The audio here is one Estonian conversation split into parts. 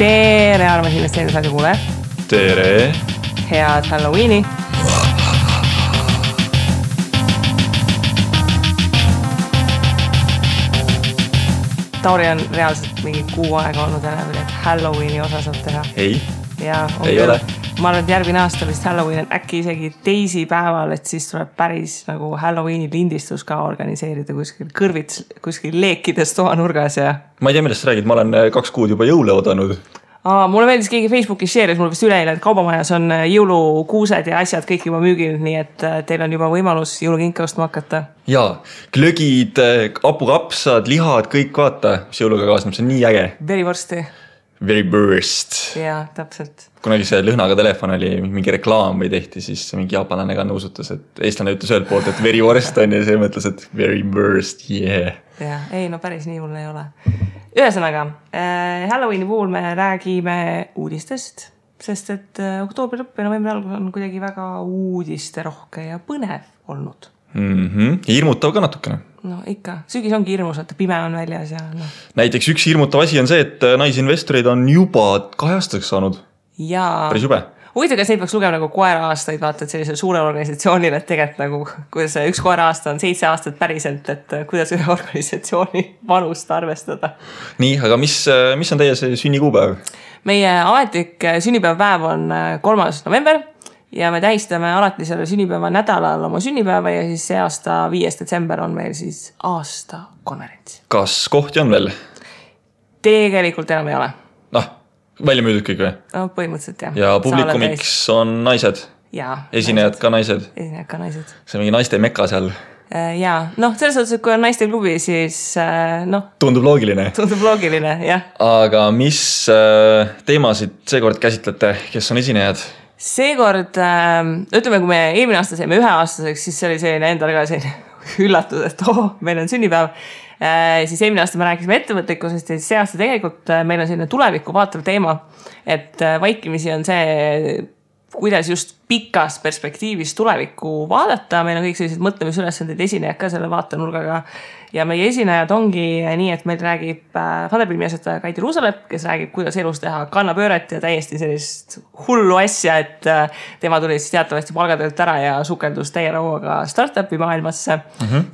Tere, armas investeerimisradio kuule. Tere. Head Halloweeni. Tauri on reaalselt mingi kuu aega olnud enam, et Halloweeni osa saab teha. Ei, ja, ei ole. Ma arvan, et järgmine aasta vist Halloween on äkki isegi teisipäeval, et siis tuleb päris nagu Halloweeni lindistus ka organiseerida kuskil kõrvits, kuskil leekides toanurgas ja... Ma ei tea, millest sa räägid, ma olen 2 kuud juba jõule oodanud. Mulle meeldis keegi Facebookis share'is, mul vist üleeile, et kaubamajas on jõulukuused ja asjad kõik juba müügil, nii et teil on juba võimalus jõulukinke ostma hakata. Jaa, glögid, hapukapsad, lihad, kõik vaata, mis jõuluga kaasneb, see on nii äge. Verivorsti. Veriburst. Jaa, täpselt. Kunagi see lõhnaga telefon oli mingi reklaam või tehti, siis mingi jaapanlane ka nõusutas, et eestlane ütles ühelt poolt, et verivorst on ja see mõtles, et veriburst, yeah. Jaa, ei, no päris nii hull ei ole. Ühesõnaga, Halloweeni puhul me räägime uudistest, sest et oktoobri lõpp ja novembri algus on kuidagi väga uudisterohke ja põnev olnud. Hirmutav ka natukene. No ikka, sügis ongi hirmus, et pime on väljas ja no. Näiteks üks hirmutav asi on see, et naisinvestoreid on juba 2 aastaks saanud. Jaa. Päris jube. Huvitav, kas neid peaks lugema nagu koera aastaid, vaata, et sellisel suurel organisatsioonil, et tegelikult nagu, kuidas üks koera aasta on 7 aastat päriselt, et kuidas ühe organisatsiooni vanust arvestada. Nii, aga mis on teie see sünnikuupäev? Meie ametlik sünnipäevapäev on 3. november ja me tähistame alati selle sünnipäeva nädalal oma sünnipäeva ja siis see aasta 5. detsember on meil siis aastakonverents. Kas kohti on veel? Tegelikult enam ei ole. Välja müüdud kõik või? No, põhimõtteliselt jah. Ja publikumiks on naised? Jaa. Esinejad ka naised? Esinejad ka naised. See on mingi naiste mekka seal? Jaa, selles suhtes, et kui on naiste klubi, siis Tundub loogiline. Tundub loogiline, jah. Aga mis teemasid seekord käsitlete, kes on esinejad? Seekord, ütleme, kui me eelmine aasta saime 1-aastaseks, siis see oli selline endale ka selline üllatus, et meil on sünnipäev. Siis eelmine aasta me rääkisime ettevõtlikkusest ja see aasta tegelikult meil on selline tulevikku vaatav teema, et vaikimisi on see, kuidas just pikas perspektiivis tulevikku vaadata. Meil on kõik sellised mõtlemisülesandid esinejad ka selle vaatenurgaga ja meie esinejad ongi nii, et meil räägib Funderbeami asjataja Kaidi Ruusalep, kes räägib, kuidas elus teha kannapööret ja täiesti sellist hullu asja, et tema tuli siis teatavasti palgatöölt ära ja sukeldus täie rauaga startupi maailmasse.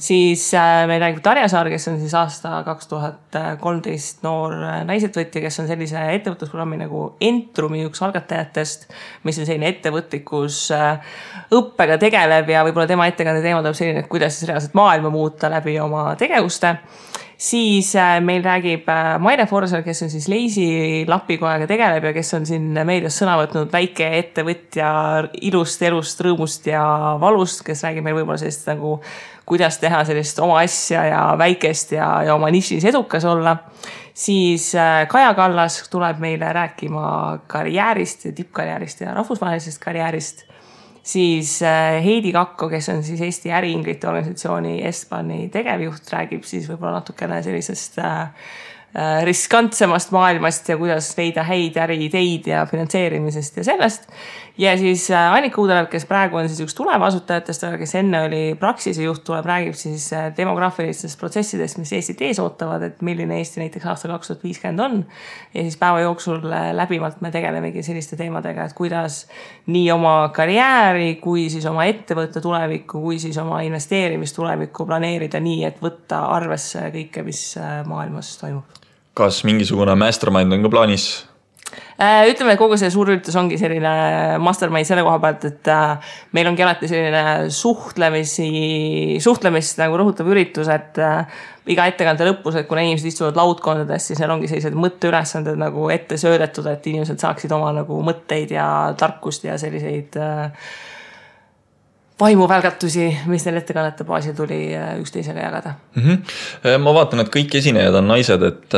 Siis meil räägib Tarja Saar, kes on siis aasta 2013 noor naisetvõtja, kes on sellise ettevõtlusprogrammi nagu Entrumi üks algatajatest, mis on selline ettevõtlikus õppega tegeleb ja võib-olla tema ettekande teema tuleb selline, et kuidas siis reaalselt maailma muuta läbi oma tegevuste. Siis meil räägib Maire Forsel, kes on siis Leisi lapikojaga tegeleb ja kes on siin meedias sõna võtnud väike ettevõtja ilust, elust, rõõmust ja valust, kes räägib meil võib-olla sellist nagu, kuidas teha sellist oma asja ja väikest ja oma nišis edukas olla. Siis Kaja Kallas tuleb meile rääkima karjäärist ja tippkarjäärist ja rahvusvahelisest karjäärist. Siis Heidi Kakko, kes on siis Eesti äriinglite organisatsiooni Estbani tegevjuht, räägib siis võib-olla natukene sellisest riskantsemast maailmast ja kuidas leida häid äriideid ja finantseerimisest ja sellest. Ja siis Annika Uudelev, kes praegu on siis üks tulevasutajatest, aga kes enne oli Praxise juht, räägib siis demograafilistest protsessidest, mis Eestit ees ootavad, et milline Eesti näiteks aasta 2050 on. Ja siis päeva jooksul läbivalt me tegelemegi selliste teemadega, et kuidas nii oma karjääri, kui siis oma ettevõtte tulevikku, kui siis oma investeerimistulevikku planeerida nii, et võtta arvesse kõike, mis maailmas toimub. Kas mingisugune mastermind on ka plaanis? Ütleme, et kogu see suur üritus ongi selline mastermind selle koha pealt, et meil ongi alati selline suhtlemist nagu rõhutav üritus, et iga ettekande lõpus, et kuna inimesed istuvad laudkondades, siis neil ongi sellised mõtteülesanded nagu ette söödetud, et inimesed saaksid oma nagu mõtteid ja tarkust ja selliseid vaimuvälgatusi, mis neil ettekannete baasil tuli üksteisega jagada. Ma vaatan, et kõik esinejad on naised, et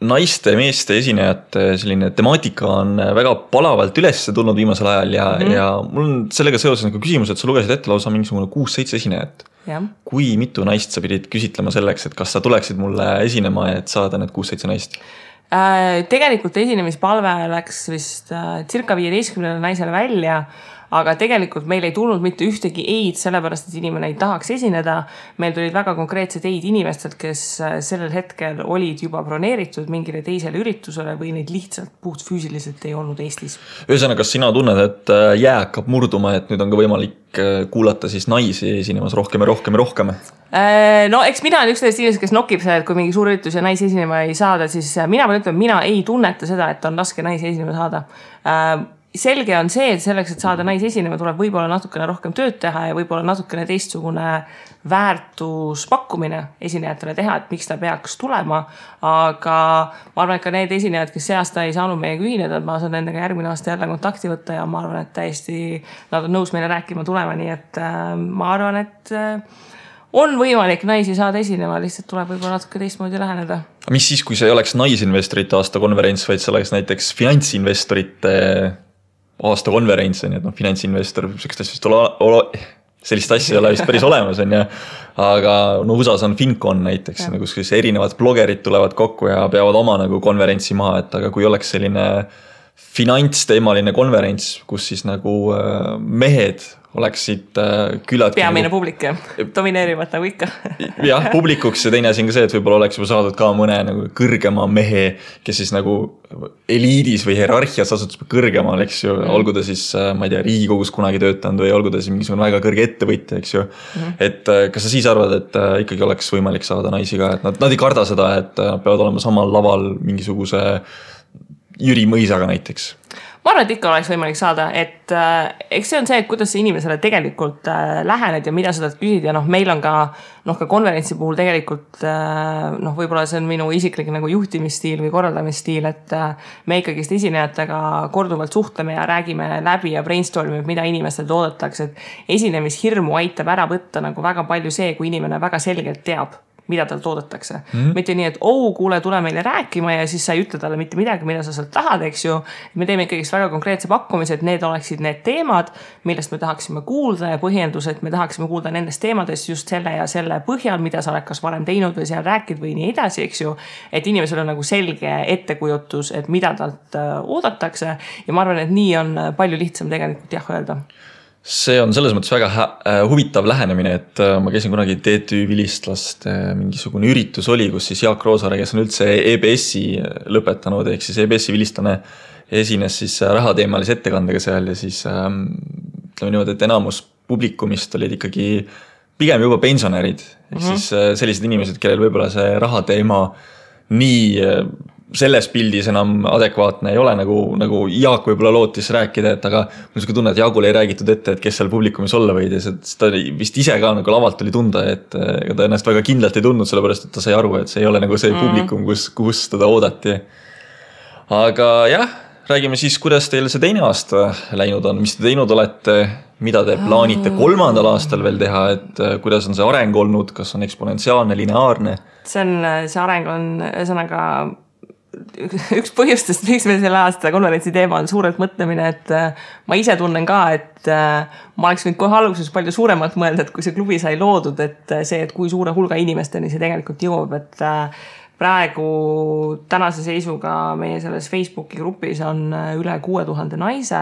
naiste ja meeste esinejate selline temaatika on väga palavalt üles tulnud viimasel ajal ja mul on sellega seoses nagu küsimus, et sa lugesid ette lausa mingisugune 6-7 esinejat. Ja. Kui mitu naist sa pidid küsitlema selleks, et kas sa tuleksid mulle esinema, et saada need 6-7 naist? Tegelikult esinemispalve läks vist circa 15 naisele välja, aga tegelikult meil ei tulnud mitte ühtegi eid, sellepärast, et inimene ei tahaks esineda. Meil tulid väga konkreetsed eid inimestelt, kes sellel hetkel olid juba broneeritud mingile teisele üritusele või neid lihtsalt puht füüsiliselt ei olnud Eestis. Ühesõnaga, kas sina tunned, et jää hakkab murduma, et nüüd on ka võimalik kuulata siis naisi esinemas rohkem ja rohkem ja rohkem? No eks mina olen üks sellest inimesed, kes nokib seda, et kui mingi suur üritus ja naisi esinema ei saada, siis mina pean ütlema, mina ei tunneta seda, et on raske naisi esinema saada. Selge on see, et selleks, et saada naisi esinema, tuleb võib-olla natukene rohkem tööd teha ja võib-olla natukene teistsugune väärtuspakkumine esinejatele teha, et miks ta peaks tulema. Aga ma arvan, et ka need esinejad, kes see aasta ei saanud meiega ühineda, ma saan nendega järgmine aasta jälle kontakti võtta ja ma arvan, et täiesti nad on nõus meile rääkima tulema, nii et ma arvan, et on võimalik naisi saada esinema, lihtsalt tuleb võib-olla natuke teistmoodi läheneda. Mis siis, kui see ei oleks naisinvestorite aasta konverents, vaid see oleks näiteks finantsinvestorite aasta konverents, on, et finantsinvestor, sellist asja ei ole vist päris olemas, on, aga no USA-s on FinCon näiteks, kus erinevad blogerid tulevad kokku ja peavad oma nagu konverentsi maha, et aga kui oleks selline finantsteemaline konverents, kus siis nagu mehed oleksid külad. Peamine publik, domineerivad nagu ikka. Jah, publikuks ja teine asi on ka see, et võib-olla oleks juba saadud ka mõne nagu kõrgema mehe, kes siis nagu eliidis või hierarhias asutus kõrgemal, eks ju, olgu ta siis, ma ei tea, Riigikogus kunagi töötanud või olgu ta siis mingisugune väga kõrge ettevõtja, eks ju. Et kas sa siis arvad, et ikkagi oleks võimalik saada naisi ka, et nad ei karda seda, et peavad olema samal laval mingisuguse Jüri Mõisaga näiteks? Ma arvan, et ikka oleks võimalik saada, et eks see on see, et kuidas see inimesele tegelikult lähened ja mida sa tahad küsid ja meil on ka konverentsi puhul tegelikult võib-olla see on minu isiklik nagu juhtimisstiil või korraldamisstiil, et me ikkagist esinejatega korduvalt suhtleme ja räägime läbi ja brainstormime, mida inimestel oodatakse, et esinemishirmu aitab ära võtta nagu väga palju see, kui inimene väga selgelt teab, mida tal toodetakse. Mitte nii, et kuule, tule meile rääkima ja siis sa ei ütle talle mitte midagi, mida sa sealt tahad, eks ju. Me teeme ikkagi väga konkreetse pakkumise, et need oleksid need teemad, millest me tahaksime kuulda ja põhjendused, me tahaksime kuulda nendest teemadest just selle ja selle põhjal, mida sa oled kas varem teinud või seal rääkid või nii edasi, eks ju. Et inimesel on nagu selge ettekujutus, et mida talt oodatakse ja ma arvan, et nii on palju lihtsam tegelikult öelda. See on selles mõttes väga huvitav lähenemine, et ma käisin kunagi TTÜ vilistlaste mingisugune üritus oli, kus siis Jaak Roosaare, kes on üldse EBS-i lõpetanud, ehk siis EBS-i vilistlane esines siis rahateemalise ettekandega seal ja siis ütleme niimoodi, et enamus publikumist olid ikkagi pigem juba pensionärid, ehk siis sellised inimesed, kellel võib-olla see rahateema nii selles pildis enam adekvaatne ei ole, nagu Jaak võib-olla lootis rääkida, et aga mul niisugune tunne, et Jaagule ei räägitud ette, et kes seal publikumis olla võid ja ta vist ise ka nagu lavalt oli tunda, et ta ennast väga kindlalt ei tundnud, sellepärast, et ta sai aru, et see ei ole nagu see publikum, kus teda oodati. Aga jah, räägime siis, kuidas teil see teine aasta läinud on, mis te teinud olete, mida te plaanite 3. aastal veel teha, et kuidas on see areng olnud, kas on eksponentsiaalne, lineaarne? See areng on ühesõnaga üks põhjustest, miks meil selle aasta konverentsi teema on suurelt mõtlemine, et ma ise tunnen ka, et ma oleks võinud kohe alguses palju suuremalt mõelda, et kui see klubi sai loodud, et see, et kui suure hulga inimesteni see tegelikult jõuab, et praegu tänase seisuga meie selles Facebooki grupis on üle 6000 naise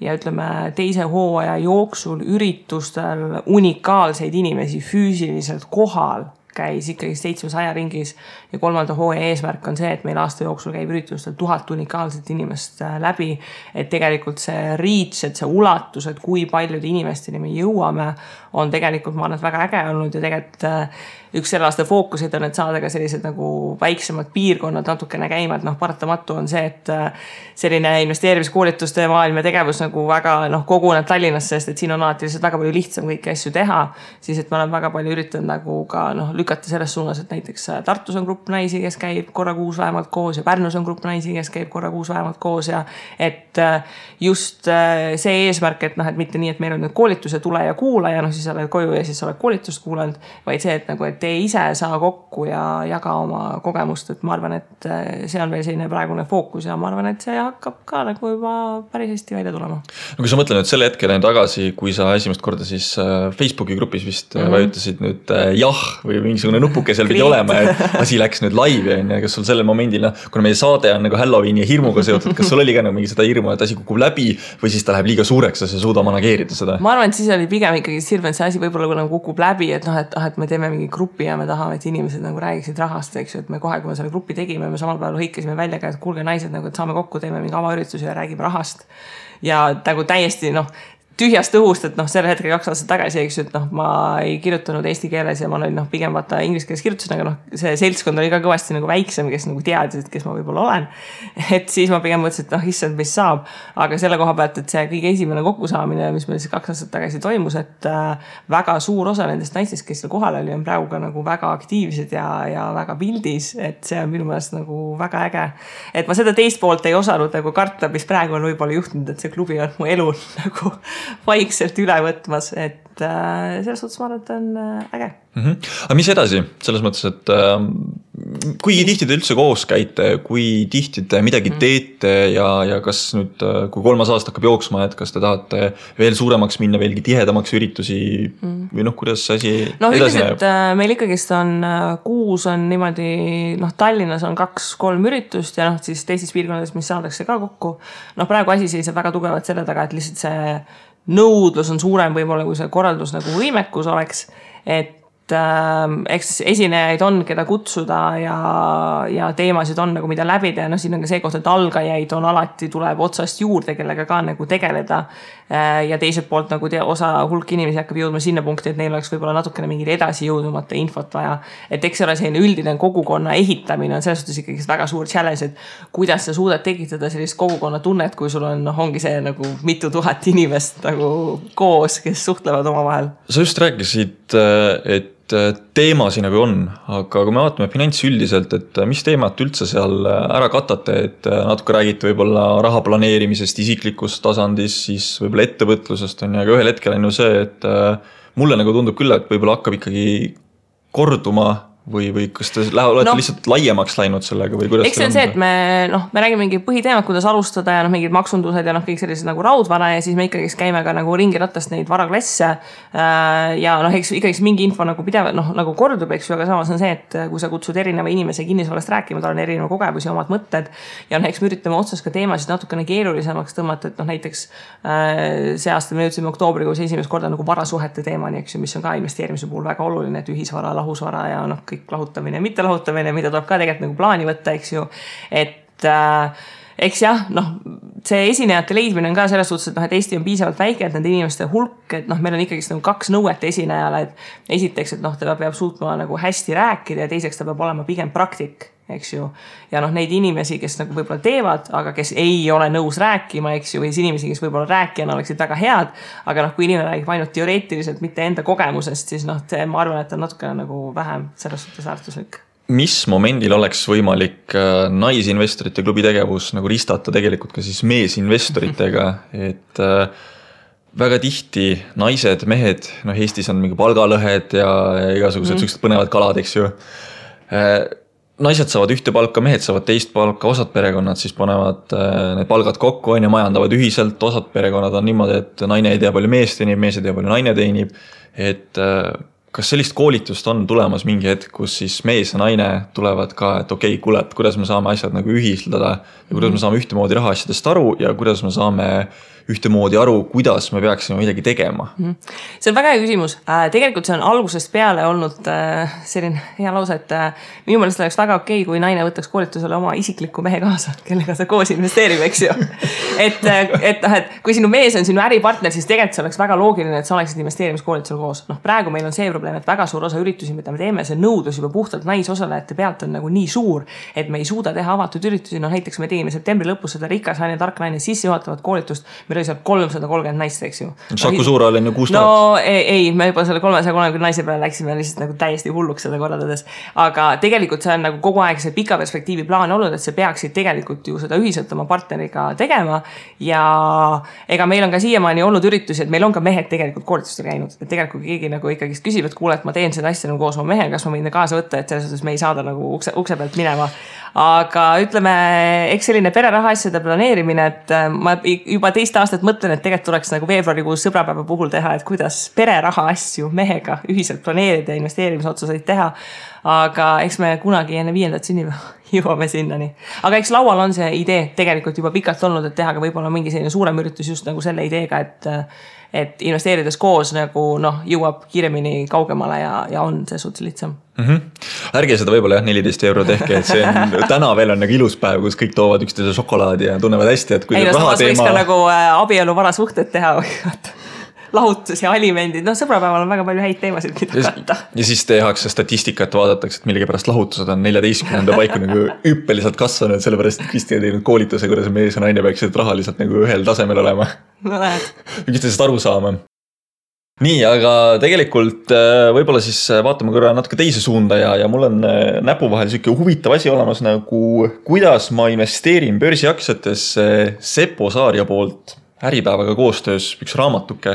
ja ütleme teise hooaja jooksul üritustel unikaalseid inimesi füüsiliselt kohal käis ikkagi 700 ringis ja 3. hooaja eesmärk on see, et meil aasta jooksul käib üritustel 1000 unikaalset inimest läbi, et tegelikult see reach, et see ulatus, et kui paljude inimesteni me jõuame, on tegelikult ma arvan, et väga äge olnud ja tegelikult üks selle aasta fookusid on, et saada ka sellised nagu väiksemad piirkonnad natukene käima, et paratamatu on see, et selline investeerimiskoolituste maailm ja tegevus nagu väga koguneb Tallinnasse, sest et siin on alati lihtsalt väga palju lihtsam kõiki asju teha, siis et ma olen väga palju üritanud nagu ka lükata selles suunas, et näiteks Tartus on grupp naisi, kes käib korra kuus vähemalt koos ja Pärnus on grupp naisi, kes käib korra kuus vähemalt koos ja et just see eesmärk, et et mitte nii, et meil on nüüd koolitus ja tule ja kuula ja siis oled koju ja siis oled koolitust kuulanud, vaid see, et et te ise saa kokku ja jaga oma kogemust, et ma arvan, et see on veel selline praegune fookus ja ma arvan, et see hakkab ka nagu juba päris hästi välja tulema. No kui sa mõtled nüüd selle hetkel tagasi, kui sa esimest korda siis Facebooki grupis vist vajutasid nüüd jah või mingisugune nupuke seal pidi olema, et asi läks nüüd laivi, kas sul sellel momendil, kuna meie saade on nagu Halloweeni ja hirmuga seotud, kas sul oli ka nagu mingi seda hirmu, et asi kukub läbi või siis ta läheb liiga suureks ja sa ei suuda manageerida seda? Ma arvan, et siis oli pigem ikkagi hirm, et see asi võib-olla nagu kukub läbi, et noh, et me teeme mingi grupi ja me tahame, et inimesed nagu räägiksid rahast, eks ju, et me kohe, kui me selle grupi tegime, me samal päeval hõikasime välja ka, et kuulge naised, nagu, et saame kokku, teeme mingi avaüritusi ja räägime rahast. Ja nagu täiesti, noh, tühjast õhust, et noh, selle hetkega 2 aastat tagasi, eks ju, et noh, ma ei kirjutanud eesti keeles ja ma olin noh, pigem vaata inglise keeles kirjutasin, aga noh, see seltskond oli ka kõvasti nagu väiksem, kes nagu teadis, et kes ma võib-olla olen. Et siis ma pigem mõtlesin, et noh, issand, mis saab. Aga selle koha pealt, et see kõige esimene kokkusaamine, mis meil siis 2 aastat tagasi toimus, et väga suur osa nendest naistest, kes seal kohal oli, on praegu ka nagu väga aktiivsed ja väga pildis, et see on minu meelest nagu väga äge. Et ma seda teist poolt ei osanud nagu karta, mis praegu on võib-olla juhtunud, et see klubi on mu elu nagu vaikselt üle võtmas, et selles suhtes ma arvan, et on äge. Aga mis edasi? Selles mõttes, et kui tihti te üldse koos käite, kui tihti te midagi teete ja kas nüüd, kui 3 aasta hakkab jooksma, et kas te tahate veel suuremaks minna, veelgi tihedamaks üritusi või noh, kuidas see asi edasi näeb? Meil ikkagist on kuus on niimoodi, noh, Tallinnas on 2-3 üritust ja noh, siis teistes piirkondades, mis saadakse ka kokku. Noh, praegu asi seisab väga tugevalt selle taga, et lihtsalt see nõudlus on suurem võib-olla, kui see korraldus nagu võimekus oleks, et eks esinejaid on, keda kutsuda ja teemasid on nagu mida läbida ja noh, siin on ka see koht, et algajaid on alati tuleb otsast juurde, kellega ka nagu tegeleda ja teiselt poolt nagu osa hulk inimesi hakkab jõudma sinna punkti, et neil oleks võib-olla natukene mingil edasi jõudumata infot vaja, et eks ole selline üldine kogukonna ehitamine on selles suhtes ikkagi väga suur challenge, et kuidas sa suudad tekitada sellist kogukonna tunnet, kui sul on, noh, ongi see nagu mitu tuhat inimest nagu koos, kes suhtlevad omavahel. Sa just rääkisid, et teemasi nagu on, aga kui me vaatame finants üldiselt, et mis teemat üldse seal ära katate, et natuke räägite võib-olla raha planeerimisest isiklikust tasandist, siis võib-olla ettevõtlusest on ja ka ühel hetkel on ju see, et mulle nagu tundub küll, et võib-olla hakkab ikkagi korduma või kas te olete lihtsalt laiemaks läinud sellega või kuidas? Eks see on see, et me räägime mingi põhiteemad, kuidas alustada ja mingid maksundused ja kõik sellised nagu raudvara ja siis me ikkagi käime ka nagu ringiratast neid varaklasse ja eks ikkagi mingi info nagu pidev, nagu kordub, eks ju, aga samas on see, et kui sa kutsud erineva inimese kinnisvarast rääkima, tal on erineva kogemusi, omad mõtted ja eks me üritame otsas ka teemasid natukene keerulisemaks tõmmata, et näiteks see aasta me jõudsime oktoobrikuus esimest korda nagu varasuhete teemani, eks ju, mis on ka investeerimise puhul väga oluline, et ühisvara, lahusvara ja kõik lahutamine ja mitte lahutamine, mida tuleb ka tegelikult nagu plaani võtta, eks ju, et eks jah, see esinejate leidmine on ka selles suhtes, et Eesti on piisavalt väike, et nende inimeste hulk, et meil on ikkagi nagu 2 nõuet esinejale, et esiteks, et ta peab suutma nagu hästi rääkida ja teiseks ta peab olema pigem praktik, eks ju, ja neid inimesi, kes nagu võib-olla teevad, aga kes ei ole nõus rääkima, eks ju, või inimesi, kes võib-olla rääkijana oleksid väga head, aga kui inimene räägib ainult teoreetiliselt, mitte enda kogemusest, siis ma arvan, et on natuke nagu vähem selles suhtes väärtuslik. Mis momendil oleks võimalik naisinvestorite klubi tegevus nagu ristata tegelikult ka siis meesinvestoritega, et väga tihti naised, mehed, Eestis on mingi palgalõhed ja igasugused sellised põnevad kalad, eks ju. Naised saavad ühte palka, mehed saavad teist palka, osad perekonnad siis panevad need palgad kokku ja majandavad ühiselt, osad perekonnad on niimoodi, et naine ei tea palju mees teenib, mees ei tea palju naine teenib, et kas sellist koolitust on tulemas mingi hetk, kus siis mees ja naine tulevad ka, et okei, kuule, et kuidas me saame asjad nagu ühistada ja kuidas me saame ühtemoodi rahaasjadest aru ja kuidas me saame ühtemoodi aru, kuidas me peaksime midagi tegema? See on väga hea küsimus. Tegelikult see on algusest peale olnud selline hea lause, et minu meelest oleks väga okei, kui naine võtaks koolitusele oma isikliku mehe kaasa, kellega ta koos investeerib, eks ju. Et kui sinu mees on sinu äripartner, siis tegelikult see oleks väga loogiline, et sa oleksid investeerimiskoolitusel koos. Praegu meil on see probleem, et väga suur osa üritusi, mida me teeme, see nõudlus juba puhtalt naisosalejate pealt on nagu nii suur, et me ei suuda teha avatud üritusi. Näiteks me tegime septembri lõpus seda rikas naine, tark naine sissejuhatavat koolitust, meil oli seal 330 naist, eks ju. Saku Suural on ju 6 000. No ei, me juba selle 330 naise peale läksime lihtsalt nagu täiesti hulluks seda korraldades. Aga tegelikult see on nagu kogu aeg see pika perspektiivi plaan olnud, et see peaksid tegelikult ju seda ühiselt oma partneriga tegema. Ja ega meil on ka siiamaani olnud üritusi, et meil on ka mehed tegelikult koolitustel käinud. Et tegelikult keegi nagu ikkagi küsib, et kuule, et ma teen seda asja nagu koos oma mehega, kas ma võin kaasa võtta, et selles suhtes me ei saada nagu ukse pealt minema. Aga ütleme, eks selline pereraha asjade planeerimine, et ma juba teist aastat mõtlen, et tegelikult tuleks nagu veebruarikuus sõbrapäeva puhul teha, et kuidas pereraha asju mehega ühiselt planeerida ja investeerimisotsuseid teha. Aga eks me kunagi enne 5. sünnipäeva jõuame sinnani. Aga eks laual on see idee tegelikult juba pikalt olnud, et teha ka võib-olla mingi selline suurem üritus just nagu selle ideega, et investeerides koos nagu jõuab kiiremini kaugemale ja on see suht lihtsam. Ärge seda võib-olla 14 euro tehke, et see on, täna veel on nagu ilus päev, kus kõik toovad üksteise šokolaadi ja tunnevad hästi, et kui samas võiks ka nagu abielu varasuhted teha või lahutus ja alimendid, sõbrapäeval on väga palju häid teemasid, mida katta. Ja siis tehakse statistikat, vaadatakse, et millegi pärast lahutused on 14. paiku nagu hüppeliselt kasvanud, sellepärast et Kristi on teinud koolituse, kuidas mees ja naine peaksid rahaliselt nagu ühel tasemel olema. No lähed. Üksteisest aru saama. Nii, aga tegelikult võib-olla siis vaatame korra natuke teise suunda ja mul on näpu vahel selline huvitav asi olemas nagu kuidas ma investeerin börsiaktsiatesse Seppo Saaria poolt Äripäevaga koostöös üks raamatuke.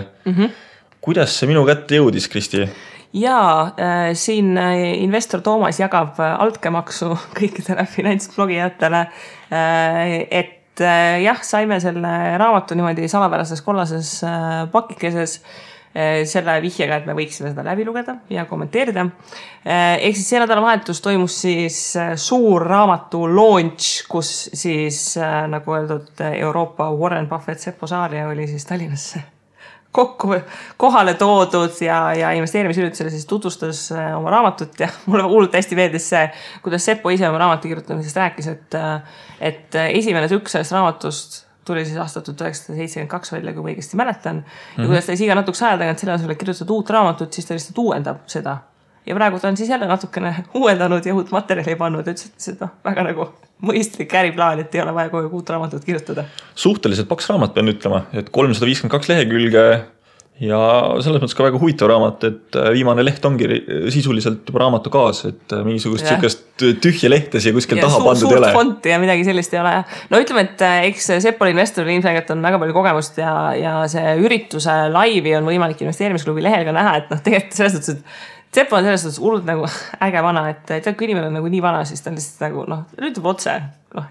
Kuidas see minu kätte jõudis, Kristi? Jaa, siin investor Toomas jagab altkäemaksu kõikidele finantsblogijatele, et jah, saime selle raamatu niimoodi salapärases kollases pakikeses selle vihjega, et me võiksime seda läbi lugeda ja kommenteerida. Ehk siis see nädalavahetus toimus siis suur raamatu launch, kus siis nagu öeldud Euroopa Warren Buffett Seppo Saaria oli siis Tallinnasse kokku kohale toodud ja investeerimisüritusele siis tutvustas oma raamatut ja mulle hullult hästi meeldis see, kuidas Seppo ise oma raamatu kirjutamisest rääkis, et esimene tükk sellest raamatust tuli siis aastat 1972 välja, kui ma õigesti mäletan. Ja kuidas ta iga natuks aja tagant selle asule kirjutada uut raamatut, siis ta lihtsalt uuendab seda. Ja praegu ta on siis jälle natukene uuendanud ja uut materjali pannud, et seda väga nagu mõistlik äriplaan, et ei ole vaja kogu uut raamatut kirjutada. Suhteliselt paks raamat pean ütlema, et 352 lehekülge ja selles mõttes ka väga huvitav raamat, et viimane leht ongi sisuliselt juba raamatu kaas, et mingisugust sükest tühja lehtes ja kuskil taha pandud ei ole. Suurt fonti ja midagi sellist ei ole. No ütleme, et eks Seppol investoril ilmselgelt on väga palju kogemust ja see ürituse laivi on võimalik investeerimisklubi lehel ka näha, et tegelikult selles suhtes, et Seppo on selles suhtes hullult nagu äge vana, et tead, kui inimene on nagu nii vana, siis ta on lihtsalt nagu, ütleb otse.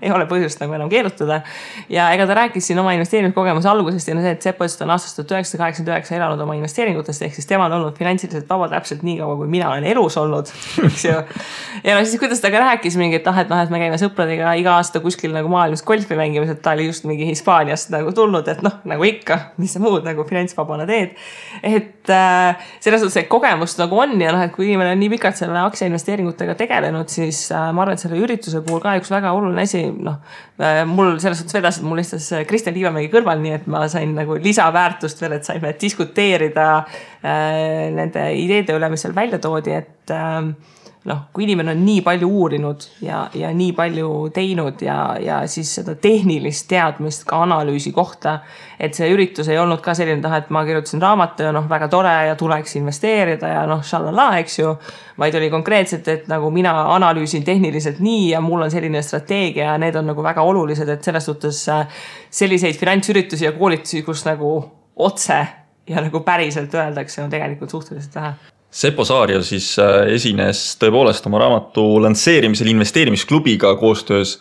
Ei ole põhjust nagu enam keerutada. Ja ega ta rääkis siin oma investeerimiskogemuse algusest ja see, et Seppo on aastast 1989 elanud oma investeeringutest, ehk siis tema on olnud finantsiliselt vaba täpselt nii kaua, kui mina olen elus olnud. Ja siis kuidas ta ka rääkis mingi, et me käime sõpradega iga aasta kuskil nagu maailmas golfi mängimas, et ta oli just mingi Hispaaniast nagu tulnud, et nagu ikka, mis sa muud nagu finantsvabana teed. Et selles suhtes, et kogemust nagu on ja et kui inimene on nii pikalt selle aktsiainvesteeringutega tegelenud, siis ma arvan, et selle ürituse puhul ka üks väga oluline asi, mul selles suhtes vedas, et mul istus Kristjan Liivamägi kõrval, nii et ma sain nagu lisaväärtust veel, et saime diskuteerida nende ideede üle, mis seal välja toodi, et kui inimene on nii palju uurinud ja nii palju teinud ja siis seda tehnilist teadmist ka analüüsi kohta, et see üritus ei olnud ka selline et ma kirjutasin raamatu ja väga tore ja tuleks investeerida ja šalala, eks ju, vaid oli konkreetselt, et nagu mina analüüsin tehniliselt nii ja mul on selline strateegia ja need on nagu väga olulised, et selles suhtes selliseid finantsüritusi ja koolitusi, kus nagu otse ja nagu päriselt öeldakse, on tegelikult suhteliselt vähe. Seppo Saaria siis esines tõepoolest oma raamatu lansseerimisel investeerimisklubiga koostöös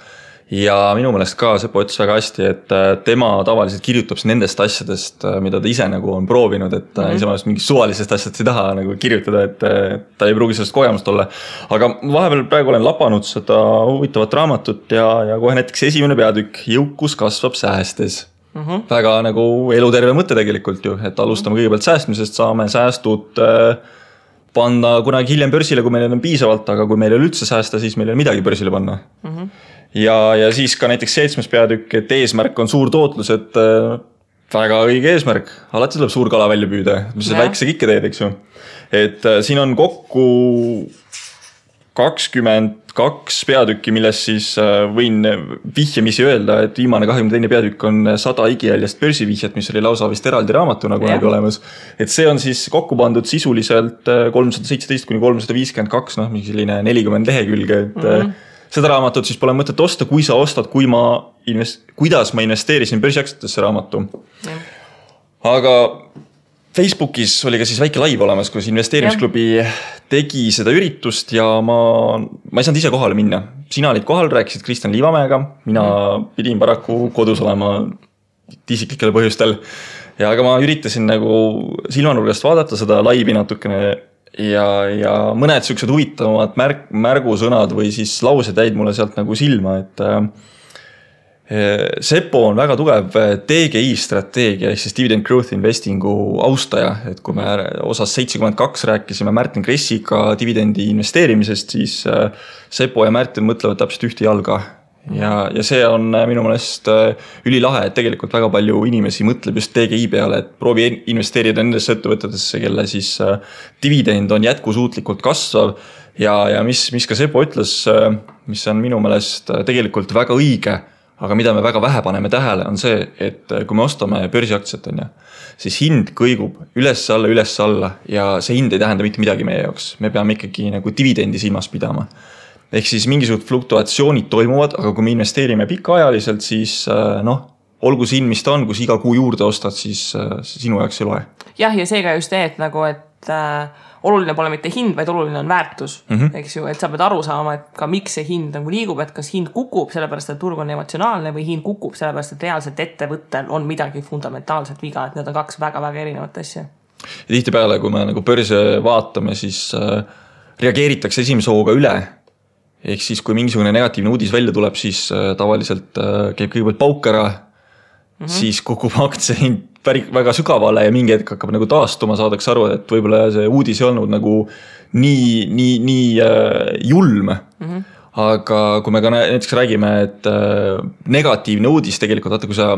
ja minu meelest ka Seppo ütles väga hästi, et tema tavaliselt kirjutab nendest asjadest, mida ta ise nagu on proovinud, et ise mõelest mingist suvalisest asjast ei taha nagu kirjutada, et ta ei pruugi sellest kogemust olla. Aga vahepeal praegu olen lapanud seda huvitavat raamatut ja kohe näiteks esimene peatükk, jõukus kasvab säästes. Väga nagu eluterve mõte tegelikult ju, et alustame kõigepealt säästmisest, saame säästud panna kunagi hiljem börsile, kui meil on piisavalt, aga kui meil ei ole üldse säästa, siis meil ei ole midagi börsile panna. Ja siis ka näiteks 7. peatükk, et eesmärk on suur tootlus, et väga õige eesmärk. Alati tuleb suur kala välja püüda, mis see väikse kikke teed, eks ju. Et siin on kokku 22 peatükki, milles siis võin vihjamisi öelda, et viimane 22. peatükk on 100 igijäljest börsivihjet, mis oli lausa vist eraldi raamatuna kunagi olemas. Et see on siis kokku pandud sisuliselt 317–352, mingi selline 40 lehekülge, et seda raamatut siis pole mõtet osta, kui sa ostad, kuidas ma investeerisin börsiaktsiatesse raamatu. Aga Facebookis oli ka siis väike live olemas, kus investeerimisklubi tegi seda üritust ja ma ei saanud ise kohale minna. Sina olid kohal, rääkisid Kristjan Liivamäega, mina pidin paraku kodus olema isiklikel põhjustel. Ja aga ma üritasin nagu silmanurgast vaadata seda laivi natukene ja mõned siuksed huvitavamad märgusõnad või siis laused jäid mulle sealt nagu silma, et Sepo on väga tugev DGI strateegia ehk siis Dividend Growth Investingu austaja, et kui me osas 72 rääkisime Märten Kressiga dividendi investeerimisest, siis Sepo ja Märten mõtlevad täpselt ühte jalga ja see on minu meelest ülilahe, et tegelikult väga palju inimesi mõtleb just DGI peale, et proovi investeerida nendesse ettevõtetesse, kelle siis dividend on jätkusuutlikult kasvav ja mis ka Sepo ütles, mis on minu meelest tegelikult väga õige, aga mida me väga vähe paneme tähele, on see, et kui me ostame börsiaktsiat, siis hind kõigub üles-alla ja see hind ei tähenda mitte midagi meie jaoks. Me peame ikkagi nagu dividendi silmas pidama. Ehk siis mingisugused fluktuatsioonid toimuvad, aga kui me investeerime pikaajaliselt, siis olgu see hind, mis ta on, kui iga kuu juurde ostad, siis sinu jaoks ei loe. Jah, ja seega just et oluline pole mitte hind, vaid oluline on väärtus, eks ju, et sa pead aru saama, et ka miks see hind nagu liigub, et kas hind kukub sellepärast, et turg on emotsionaalne või hind kukub sellepärast, et reaalselt ettevõttel on midagi fundamentaalselt viga, et need on kaks väga-väga erinevat asja. Ja tihtipeale, kui me nagu börse vaatame, siis reageeritakse esimese hooga üle. Ehk siis, kui mingisugune negatiivne uudis välja tuleb, siis tavaliselt käib kõigepealt pauk ära, siis kukub aktsia hind väga sügavale ja mingi hetk hakkab nagu taastuma, saadaks aru, et võib-olla see uudis ei olnud nagu nii julm. Aga kui me ka näiteks räägime, et negatiivne uudis tegelikult, vaata kui sa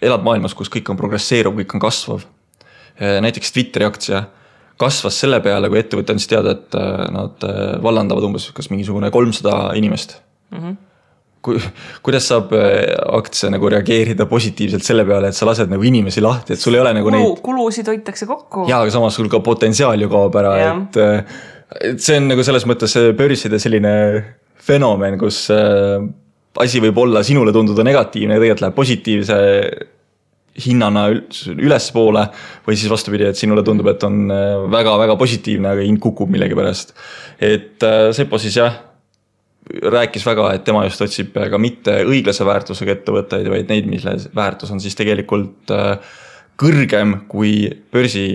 elad maailmas, kus kõik on progresseeruv, kõik on kasvav. Näiteks Twitteri aktsia kasvas selle peale, kui ettevõte andis teada, et nad vallandavad umbes kas mingisugune 300 inimest. Kuidas saab aktsia nagu reageerida positiivselt selle peale, et sa lased nagu inimesi lahti, et sul ei ole nagu neid... Kulusid hoitakse kokku. Jaa, aga samas sul ka potentsiaal ju kaob ära, et see on nagu selles mõttes börside selline fenomen, kus asi võib olla sinule tunduda negatiivne ja tegelikult läheb positiivse hinnana üles poole või siis vastupidi, et sinule tundub, et on väga-väga positiivne, aga hind kukub millegi pärast. Et Sepo siis rääkis väga, et tema just otsib ka mitte õiglase väärtusega ettevõtteid, vaid neid, mille väärtus on siis tegelikult kõrgem kui börsi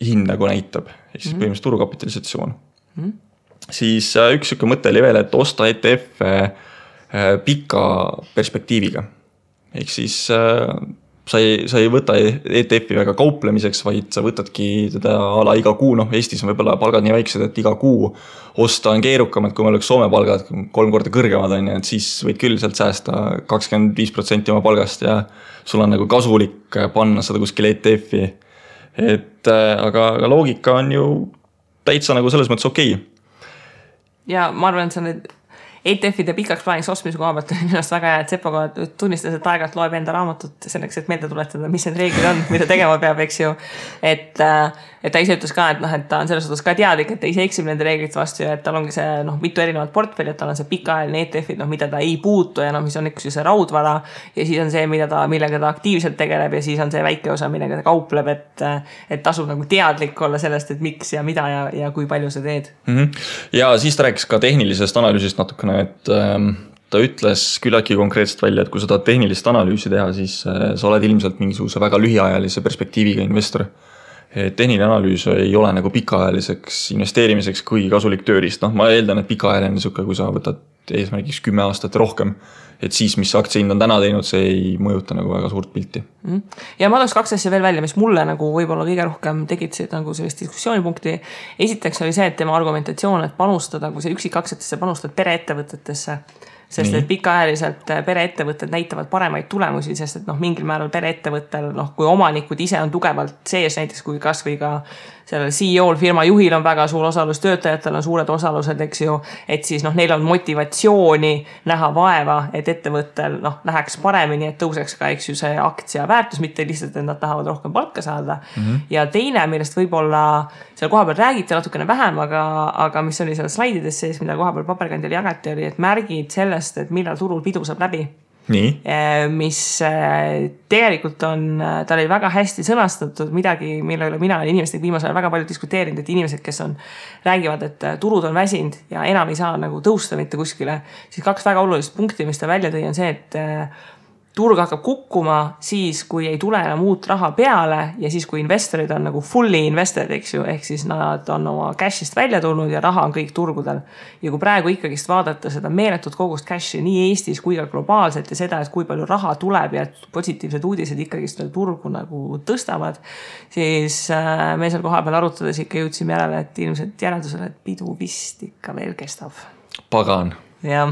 hind nagu näitab. Ehk siis põhimõtteliselt turukapitalisatsioon. Siis üks mõte oli veel, et osta ETF pika perspektiiviga. Ehk siis sa ei võta ETF-i väga kauplemiseks, vaid sa võtadki teda ala iga kuu, Eestis on võib-olla palgad nii väiksed, et iga kuu osta on keerukam, et kui meil oleks Soome palgad 3 korda kõrgemad, et siis võid küll sealt säästa 25% oma palgast ja sul on nagu kasulik panna seda kuskil ETF-i. Aga loogika on ju täitsa nagu selles mõttes okei. Ja ma arvan, et see on ETF-ide pikaks plaaniks ostmise koha pealt on ennast väga hea, et Sepo tunnistas, et aegalt loeb enda raamatut selleks, et meelde tuletada, mis need reeglid on, mida tegema peab, eks ju. Et ta ise ütles ka, et ta on selles suhtes ka teadlik, et ta ise eksib nende reeglite vastu ja et tal ongi see mitu erinevat portfelli, et tal on see pikaajaline ETF-id, mida ta ei puutu ja mis on üks see raudvara ja siis on see, millega ta aktiivselt tegeleb ja siis on see väike osa, millega ta kaupleb, et tasub nagu teadlik olla sellest, et miks ja mida ja kui palju sa teed. Ja siis ta rääkis ka tehnilisest analüüsist natukene, et ta ütles küllaltki konkreetselt välja, et kui sa tahad tehnilist analüüsi teha, siis sa oled ilmselt mingisuguse väga lühiajalise perspektiiviga investor. Tehniline analüüs ei ole nagu pikaajaliseks investeerimiseks kõige kasulik tööriist. Ma eeldan, et pikaajaline suke, kui sa võtad eesmärgiks 10 aastat rohkem, et siis, mis aktsia hind on täna teinud, see ei mõjuta nagu väga suurt pilti. Ja ma tooks 2 asja veel välja, mis mulle nagu võib-olla kõige rohkem tekitasid nagu sellist diskussioonipunkti. Esiteks oli see, et tema argumentatsioon, et panustada, kui sa üksikaktsiatesse panustad pereettevõtetesse, sest et pikaajaliselt pereettevõtted näitavad paremaid tulemusi, sest et mingil määral pereettevõttel, kui omanikud ise on tugevalt sees, näiteks kui kas või ka sellel CEO-l, firma juhil on väga suur osalus, töötajatel on suured osalused, eks ju, et siis neil on motivatsiooni näha vaeva, et ettevõttel läheks paremini, et tõuseks ka, eks ju, see aktsia väärtus, mitte lihtsalt, et nad tahavad rohkem palka saada. Ja teine, millest võib-olla seal koha peal räägiti natukene vähem, aga mis oli seal slaidides sees, mida koha peal paberkandjal jagati, oli, et märgid sellest, et millal turul pidu saab läbi. Nii. Mis tegelikult ta oli väga hästi sõnastatud midagi, mille üle mina olen inimestega viimasel väga palju diskuteerinud, et inimesed, kes räägivad, et turud on väsinud ja enam ei saa nagu tõusta mitte kuskile, siis 2 väga olulist punkti, mis ta välja tõi, on see, turg hakkab kukkuma siis, kui ei tule enam uut raha peale ja siis, kui investorid on nagu fully invested, eks ju, ehk siis nad on oma cash'ist välja tulnud ja raha on kõik turgudel. Ja kui praegu ikkagist vaadata seda meeletut kogust cash'i nii Eestis kui ka globaalselt ja seda, et kui palju raha tuleb ja positiivsed uudised ikkagist turgu nagu tõstavad, siis me seal koha peal arutades ikka jõudsime järele, et ilmselt järeldusele, et pidu vist ikka veel kestab. Pagan. Ja.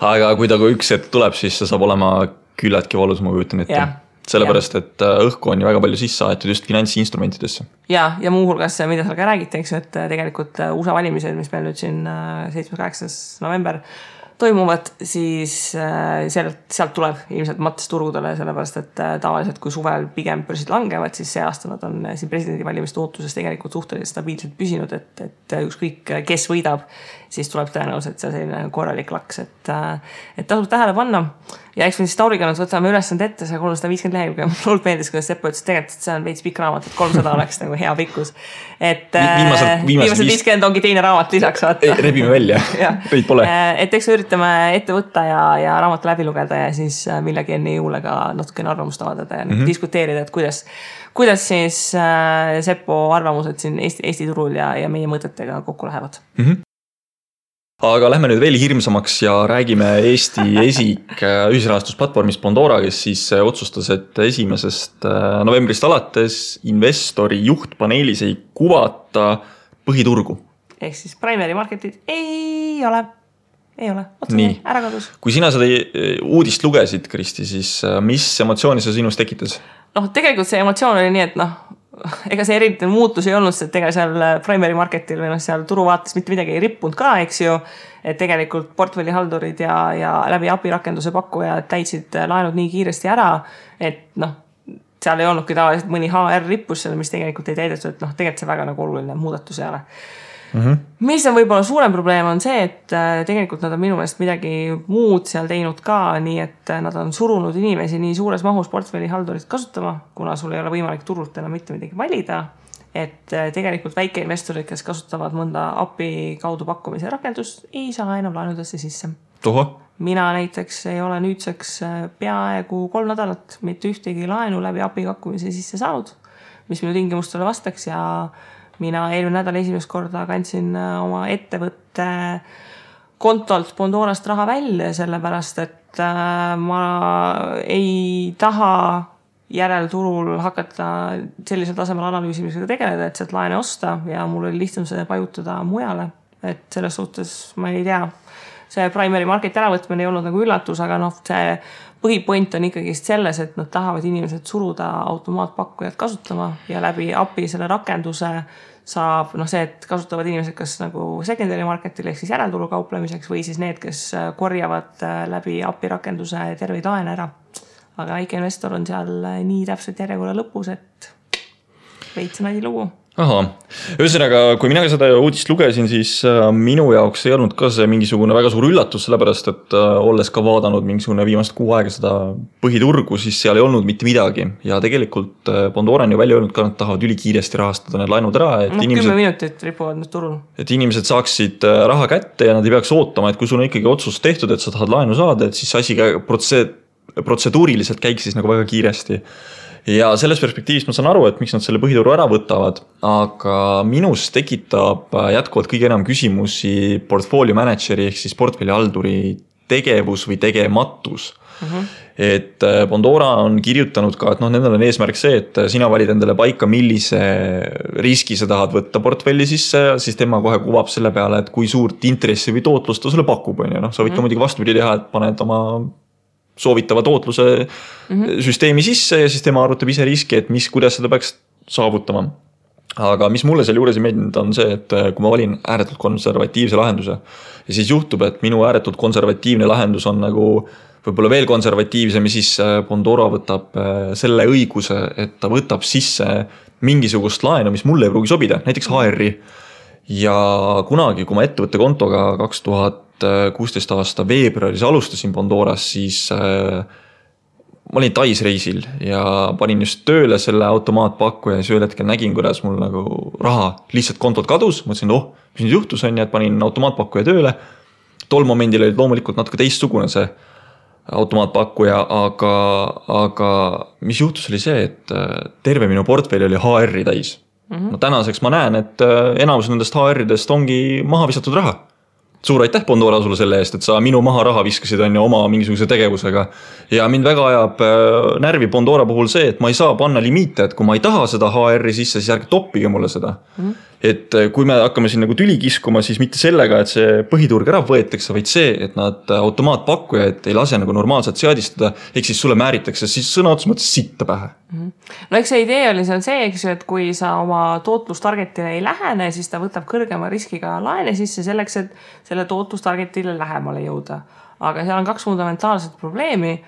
Aga kui ta kui üks hetk tuleb, siis see saab olema küllaltki valus, ma kujutan ette. Sellepärast, et õhku on ju väga palju sisse aetud just finantsinstrumentidesse. Ja muuhulgas, mida seal ka räägite, eks, et tegelikult USA valimised, mis meil nüüd siin 7.8. november toimuvad, siis sealt tuleb ilmselt mats turgudele, sellepärast, et tavaliselt kui suvel pigem börsid langevad, siis see aasta nad on siin presidendivalimiste ootuses tegelikult suhteliselt stabiilselt püsinud, et ükskõik kes võidab, siis tuleb tõenäoliselt see selline korralik laks, et tasub tähele panna. Ja eks me siis Tauriga nüüd võtame ülesand ette, see 350 lehekülge. Mul meeldis, kuidas Seppo ütles, tegelikult see on veits pikk raamat, et 300 oleks nagu hea pikkus. Et viimased 50 ongi teine raamat lisaks vaata. Rebime välja, teid pole. Et eks üritame ette võtta ja raamatu läbi lugeda ja siis millegi enne jõule ka natukene arvamust avaldada ja diskuteerida, et kuidas siis Seppo arvamused siin Eesti turul ja meie mõtetega kokku lähevad. Aga lähme nüüd veel hirmsamaks ja räägime Eesti esik ühisrahastusplatvormist Bondora, kes siis otsustas, et 1. novembrist alates investori juhtpaneelis ei kuvata põhiturgu. Ehk siis primary marketit ei ole. Otsume, ära kadus. Kui sina seda uudist lugesid, Kristi, siis mis emotsiooni see sinus tekitas? Tegelikult see emotsioon oli nii, et ega see eriti muutus ei olnud, et ega seal primary marketil või seal turuvaates mitte midagi ei rippunud ka, eks ju, et tegelikult portfellihaldurid ja läbi API rakenduse pakkujad täitsid laenud nii kiiresti ära, et seal ei olnudki tavaliselt mõni HR rippus seal, mis tegelikult ei täidetud, et tegelikult see väga nagu oluline muudatus ei ole. Mis on võib-olla suurem probleem on see, et tegelikult nad on minu meelest midagi muud seal teinud ka, nii et nad on surunud inimesi nii suures mahus portfellihaldurit kasutama, kuna sul ei ole võimalik turult enam mitte midagi valida, et tegelikult väikeinvestorid, kes kasutavad mõnda API kaudu pakkumise rakendust, ei saa enam laenudesse sisse. Mina näiteks ei ole nüüdseks peaaegu 3 nädalat mitte ühtegi laenu läbi API pakkumise sisse saanud, mis minu tingimustele vastaks ja mina eelmine nädal esimest korda kandsin oma ettevõtte kontolt Bondorast raha välja, sellepärast, et ma ei taha järelturul hakata sellisel tasemel analüüsimisega tegeleda, et sealt laene osta ja mul oli lihtsam see pajutada mujale. Et selles suhtes ma ei tea, see primary market äravõtmine ei olnud nagu üllatus, aga see põhipoint on ikkagist selles, et nad tahavad inimesed suruda automaatpakkujad kasutama ja läbi API selle rakenduse saab see, et kasutavad inimesed kas nagu secondary marketil ehk siis järelturu kauplemiseks või siis need, kes korjavad läbi API rakenduse terveid laene ära. Aga väike investor on seal nii täpselt järjekorra lõpus, et veits nadi lugu. Aha, ühesõnaga, kui mina seda uudist lugesin, siis minu jaoks ei olnud ka see mingisugune väga suur üllatus, sellepärast, et olles ka vaadanud mingisugune viimast 6 aega seda põhiturgu, siis seal ei olnud mitte midagi. Ja tegelikult Bondora on ju välja öelnud ka, nad tahavad ülikiiresti rahastada need laenud ära. Et 10 minutit ripuvad nüüd turul. Et inimesed saaksid raha kätte ja nad ei peaks ootama, et kui sul on ikkagi otsus tehtud, et sa tahad laenu saada, et siis asi protseduuriliselt käiks siis nagu väga kiiresti. Ja selles perspektiivis ma saan aru, et miks nad selle põhituru ära võtavad, aga minus tekitab jätkuvalt kõige enam küsimusi portfolio manageri ehk siis portfellihalduri tegevus või tegematus. Et Bondora on kirjutanud ka, et nendel on eesmärk see, et sina valid endale paika, millise riski sa tahad võtta portfelli sisse, siis tema kohe kuvab selle peale, et kui suurt intressi või tootlust ta sulle pakub. Sa võid ka muidugi vastupidi teha, et paned oma soovitava tootluse süsteemi sisse ja siis tema arvutab ise riski, et kuidas seda peaks saavutama. Aga mis mulle selle juures ei meeldinud on see, et kui ma valin ääretult konservatiivse lahenduse ja siis juhtub, et minu ääretult konservatiivne lahendus on nagu võib-olla veel konservatiivsem ja siis Bondora võtab selle õiguse, et ta võtab sisse mingisugust laenu, mis mulle ei pruugi sobida, näiteks HR-i. Ja kunagi, kui ma ettevõtte kontoga 2016 aasta veebruaris alustasin Bondoras, siis ma olin Tais reisil ja panin just tööle selle automaatpakkuja ja siis ühel hetkel nägin, kuidas mul nagu raha lihtsalt kontot kadus. Mõtlesin, mis nüüd juhtus on ja et panin automaatpakkuja tööle. Tol momendil oli loomulikult natuke teistsugune see automaatpakkuja, aga mis juhtus oli see, et terve minu portfelli oli HR-i täis. No tänaseks ma näen, et enamus nendest HR-idest ongi maha visatud raha. Suur aitäh Bondora sulle selle eest, et sa minu maha raha viskasid on ju oma mingisuguse tegevusega. Ja mind väga ajab närvi Bondora puhul see, et ma ei saa panna limiite, et kui ma ei taha seda HR-i sisse, siis ärge toppige mulle seda. Et kui me hakkame siin nagu tüli kiskuma, siis mitte sellega, et see põhiturg ära võetakse, vaid see, et nad automaatpakkujaid ei lase nagu normaalselt seadistada, ehk siis sulle määritakse siis sõna otseses mõttes sitta pähe. No eks see idee oli see, eks ju, et kui sa oma tootlustargetile ei lähene, siis ta võtab kõrgema riskiga laene sisse selleks, et selle tootlustargetile lähemale jõuda. Aga seal on 2 fundamentaalset probleemi.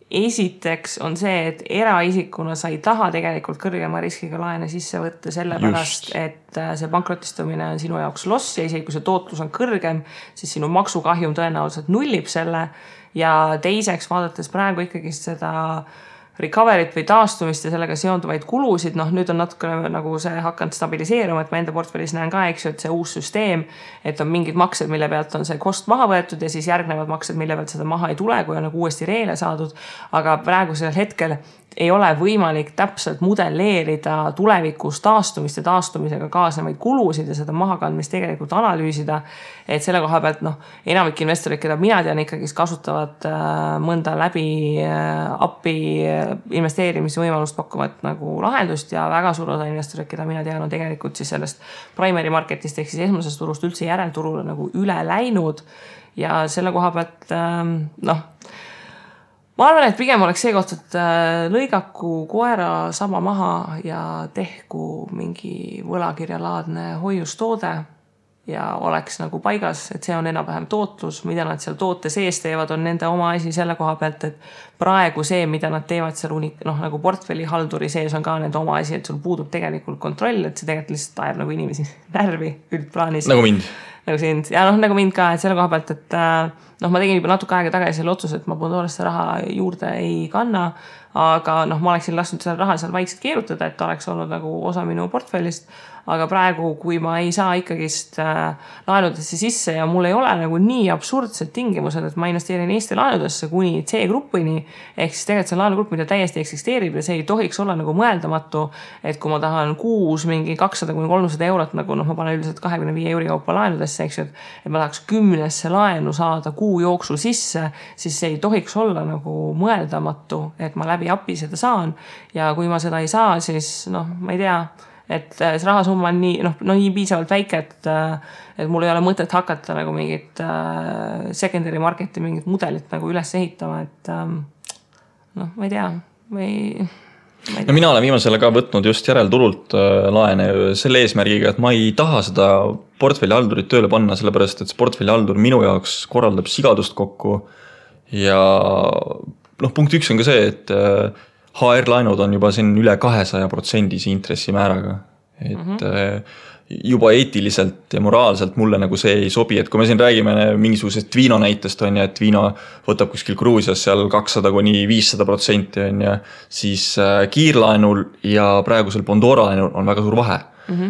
Esiteks on see, et eraisikuna sa ei taha tegelikult kõrgema riskiga laene sisse võtta sellepärast, et see pankrotistumine on sinu jaoks loss ja isegi kui see tootlus on kõrgem, siis sinu maksukahjum tõenäoliselt nullib selle. Ja teiseks vaadates praegu ikkagi seda recovery't või taastumist ja sellega seonduvaid kulusid, nüüd on natuke nagu see hakanud stabiliseeruma, et ma enda portfellis näen ka, eks ju, et see uus süsteem, et on mingid maksed, mille pealt on see kost maha võetud ja siis järgnevad maksed, mille pealt seda maha ei tule, kui on nagu uuesti reele saadud, aga praegusel hetkel ei ole võimalik täpselt modelleerida tulevikus taastumist ja taastumisega kaasnevaid kulusid ja seda mahakandmist tegelikult analüüsida, et selle koha pealt enamik investorid, keda mina tean ikkagi kasutavad mõnda läbi appi investeerimisvõimalust pakkuvat nagu lahendust ja väga suur osa investorid, keda mina tean, on tegelikult siis sellest primary marketist ehk siis esmasest turust üldse järelturule nagu üle läinud ja selle koha pealt ma arvan, et pigem oleks see koht, et lõigaku koera sama maha ja tehku mingi võlakirjalaadne hoiustoode ja oleks nagu paigas, et see on enam-vähem tootlus, mida nad seal toote sees teevad, on nende oma asi selle koha pealt, et praegu see, mida nad teevad seal nagu portfelli halduri sees on ka nende oma asi, et sul puudub tegelikult kontroll, et see tegelikult lihtsalt ajab nagu inimesi närvi üldplaanis. Nagu mind. Nagu sind. Ja nagu mind ka, et selle koha pealt, et ma tegin juba natuke aega tagasi selle otsuse, et ma Bondorasse raha juurde ei kanna, aga ma oleksin lasknud selle raha seal vaikselt keerutada, et ta oleks olnud nagu osa minu portfellist, aga praegu, kui ma ei saa ikkagist laenudesse sisse ja mul ei ole nagu nii absurdsed tingimused, et ma investeerin Eesti laenudesse kuni C-gruppini, ehk siis tegelikult see laenugrupp, mida täiesti eksisteerib ja see ei tohiks olla nagu mõeldamatu, et kui ma tahan kuus mingi 200-300 eurot, nagu ma panen üldiselt 25 euri kaupa laenudesse, eks ju, et ma tahaks 10 laenu saada kuu jooksul sisse, siis see ei tohiks olla nagu mõeldamatu, et ma läbi api seda saan ja kui ma seda ei saa, siis ma ei tea, et see rahasumma on nii piisavalt väike, et mul ei ole mõtet hakata nagu mingit secondary marketi mingit mudelit nagu üles ehitama, et ma ei tea, No mina olen viimasele ka võtnud just järelturult laene selle eesmärgiga, et ma ei taha seda portfelli haldurit tööle panna, sellepärast et see portfelli haldur minu jaoks korraldab sigadust kokku ja punkt 1 on ka see, et HR-laenud on juba siin üle 200% intressimääraga, et juba eetiliselt ja moraalselt mulle nagu see ei sobi, et kui me siin räägime mingisugusest Twino näitest on ja et Twino võtab kuskil Gruusias seal 200-500% on ja siis kiirlaenul ja praegusel Bondora laenul on väga suur vahe.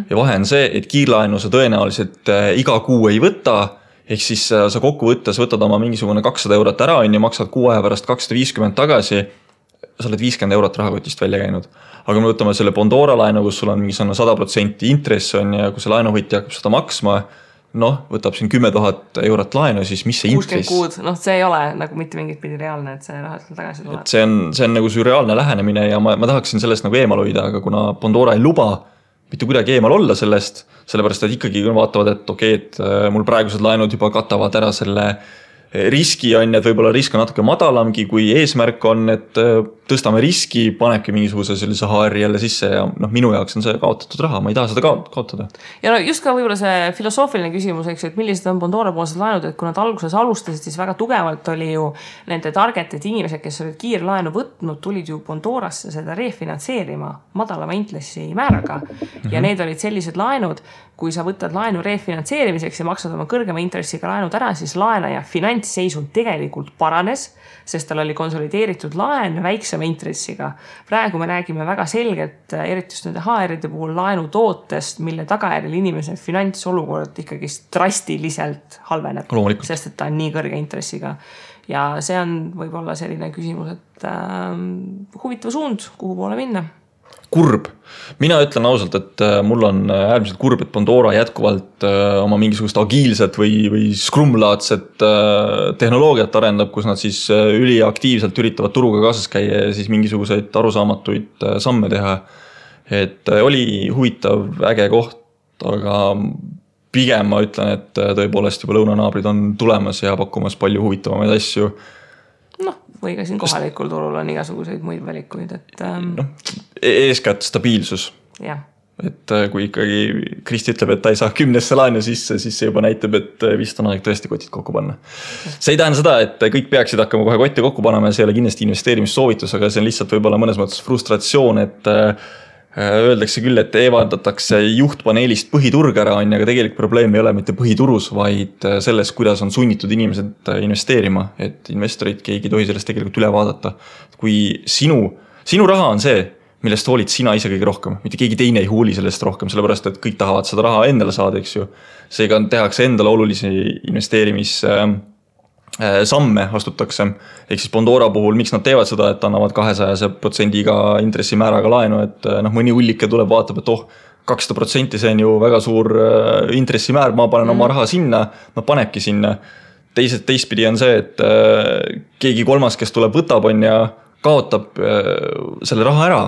Ja vahe on see, et kiirlaenu sa tõenäoliselt iga kuu ei võta, ehk siis sa kokku võttes võtad oma mingisugune 200 eurot ära on ja maksad kuu aja pärast 250 tagasi, sa oled 50 eurot rahakotist välja käinud. Aga me võtame selle Bondora laenu, kus sul on mingi 100% intress on ja kui see laenuhõtja hakkab seda maksma, võtab siin 10 000 eurot laenu, siis mis see intress? 60 kuud, see ei ole nagu mitte mingit pidi reaalne, et see raha seal tagasi tuleb. Et see on nagu sürreaalne lähenemine ja ma tahaksin sellest nagu eemal hoida, aga kuna Bondora ei luba mitte kuidagi eemal olla sellest, sellepärast et ikkagi vaatavad, et okei, et mul praegused laenud juba katavad ära selle riski on, et võib-olla risk on natuke madalamgi, kui eesmärk on, et tõstame riski, panebki mingisuguse sellise HR jälle sisse ja minu jaoks on see kaotatud raha, ma ei taha seda kaotada. Ja just ka võib-olla see filosoofiline küsimus, eks, et millised on Bondora poolsed laenud, et kui nad alguses alustasid, siis väga tugevalt oli ju nende targeted inimesed, kes olid kiirlaenu võtnud, tulid ju Bondorasse seda refinantseerima madalama intressi määraga ja need olid sellised laenud, kui sa võtad laenu refinantseerimiseks ja maksad oma kõrgema intressiga laenud ära, siis laenaja finantsseisund tegelikult paranes, sest tal oli konsolideeritud laen väiksema intressiga. Praegu me räägime väga selgelt, eriti just nende HR-ide puhul laenutootest, mille tagajärjel inimese finantsolukord ikkagi drastiliselt halveneb, sest et ta on nii kõrge intressiga. Ja see on võib-olla selline küsimus, et huvitav suund, kuhu poole minna. Kurb. Mina ütlen ausalt, et mul on äärmiselt kurb, et Pandora jätkuvalt oma mingisugust agiilset või scrum-laadset tehnoloogiat arendab, kus nad siis üliaktiivselt üritavad turuga kaasas käia ja siis mingisuguseid arusaamatuid samme teha. Et oli huvitav, äge koht, aga pigem ma ütlen, et tõepoolest juba lõunanaabrid on tulemas ja pakkumas palju huvitavamaid asju. Või ka siin kohalikul turul on igasuguseid muid valikuid, et eeskätt stabiilsus. Jah. Et kui ikkagi Kristi ütleb, et ta ei saa 10 laenu sisse, siis see juba näitab, et vist on aeg tõesti kotid kokku panna. See ei tähenda seda, et kõik peaksid hakkama kohe kotti kokku panema ja see ei ole kindlasti investeerimissoovitus, aga see on lihtsalt võib-olla mõnes mõttes frustratsioon, et öeldakse küll, et eevaldatakse juhtpaneelist põhiturg ära, aga tegelikult probleem ei ole mitte põhiturus, vaid selles, kuidas on sunnitud inimesed investeerima, et investorid keegi tohi sellest tegelikult üle vaadata. Kui sinu raha on see, millest hoolid sina ise kõige rohkem, mitte keegi teine ei hooli sellest rohkem, sellepärast et kõik tahavad seda raha endale saada, eks ju. Seega tehakse endale olulisi investeerimissamme astutakse. Ehk siis Pandora puhul, miks nad teevad seda, et annavad 200% intressimääraga laenu, et mõni hullike tuleb, vaatab, et 200% see on ju väga suur intressimäär, ma panen oma raha sinna, ma panebki sinna. Teistpidi on see, et keegi kolmas, kes tuleb võtab on ja kaotab selle raha ära.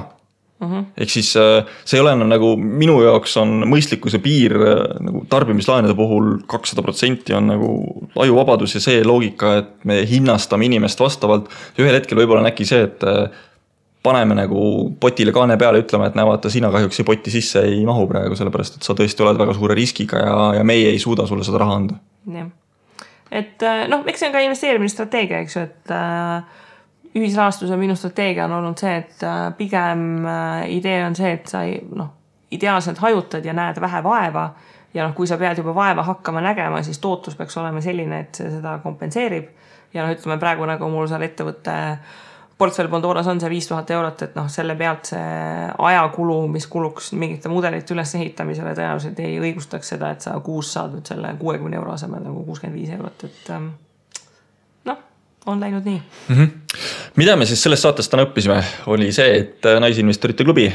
Ehk siis see ei ole nagu minu jaoks on mõistlikkuse piir nagu tarbimislaenude puhul 200% on nagu ajuvabadus ja see loogika, et me hinnastame inimest vastavalt. Ühel hetkel võib-olla on äkki see, et paneme nagu potile kaane peale, ütleme, et näevata, sina kahjuks potti sisse ei mahu praegu, sellepärast, et sa tõesti oled väga suure riskiga ja meie ei suuda sulle seda raha anda. Ja. Et eks see on ka investeerimisstrateegia, eks ju, et ühisrahastuse minu strateegia on olnud see, et pigem idee on see, et sa ideaalselt hajutad ja näed vähe vaeva ja kui sa pead juba vaeva hakkama nägema, siis tootlus peaks olema selline, et see seda kompenseerib ja ütleme praegu nagu mul seal ettevõtte portfell Pandoras on see 5000 eurot, et selle pealt see ajakulu, mis kuluks mingite mudelite üles ehitamisele tõenäoliselt ei õigustaks seda, et sa kuus saad nüüd selle 60 euro asemel nagu 65 eurot, et on läinud nii. Mida me siis sellest saatest täna õppisime, oli see, et Naisinvestorite klubi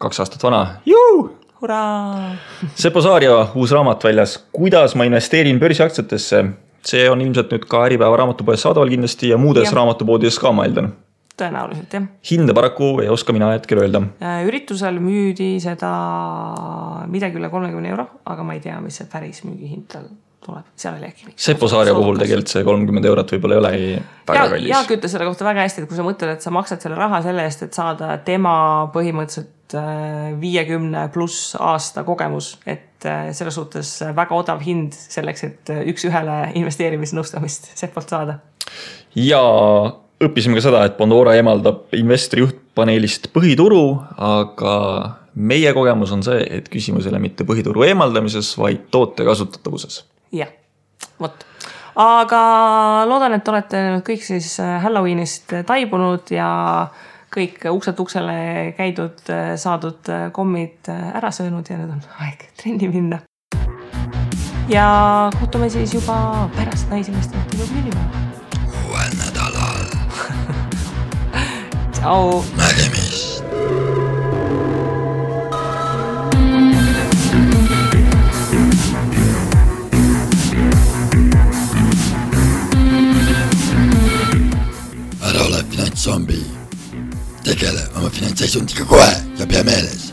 2 aastat vana. Juu! Hurraa! Seppo Saarja uus raamat väljas, kuidas ma investeerin börsiaktsiatesse. See on ilmselt nüüd ka Äripäeva raamatupoes saadaval kindlasti ja muudes raamatupoodides ka ma eeldan. Tõenäoliselt, jah. Hinde paraku ei oska mina hetkel öelda. Üritusel müüdi seda midagi üle 30 euro, aga ma ei tea, mis see päris müügihind tal tuleb. Seal oli äkki. Seppo Saarja puhul tegelikult see 30 eurot võib-olla ei olegi väga kallis. Jaak ütles selle kohta väga hästi, et kui sa mõtled, et sa maksad selle raha selle eest, et saada tema põhimõtteliselt 50 pluss aasta kogemus, et selles suhtes väga odav hind selleks, et üks ühele investeerimisnõustamist Seppolt saada. Ja õppisime ka seda, et Pandora emaldab investori juhtpaneelist põhituru, aga meie kogemus on see, et küsimus ei ole mitte põhituru eemaldamises, vaid toote kasutatavuses. Jah, võt. Aga loodan, et olete kõik siis Halloweenist taibunud ja kõik ukselt uksele käidud, saadud kommid ära söönud ja nüüd on aeg trenni minna. Ja kohtume siis juba pärast Naisinvestorite klubi. Uuel nädalal. Tšau. Nägemist. Ära ole finantszombi. Tegele oma finantsseisundiga kohe ja pea meeles.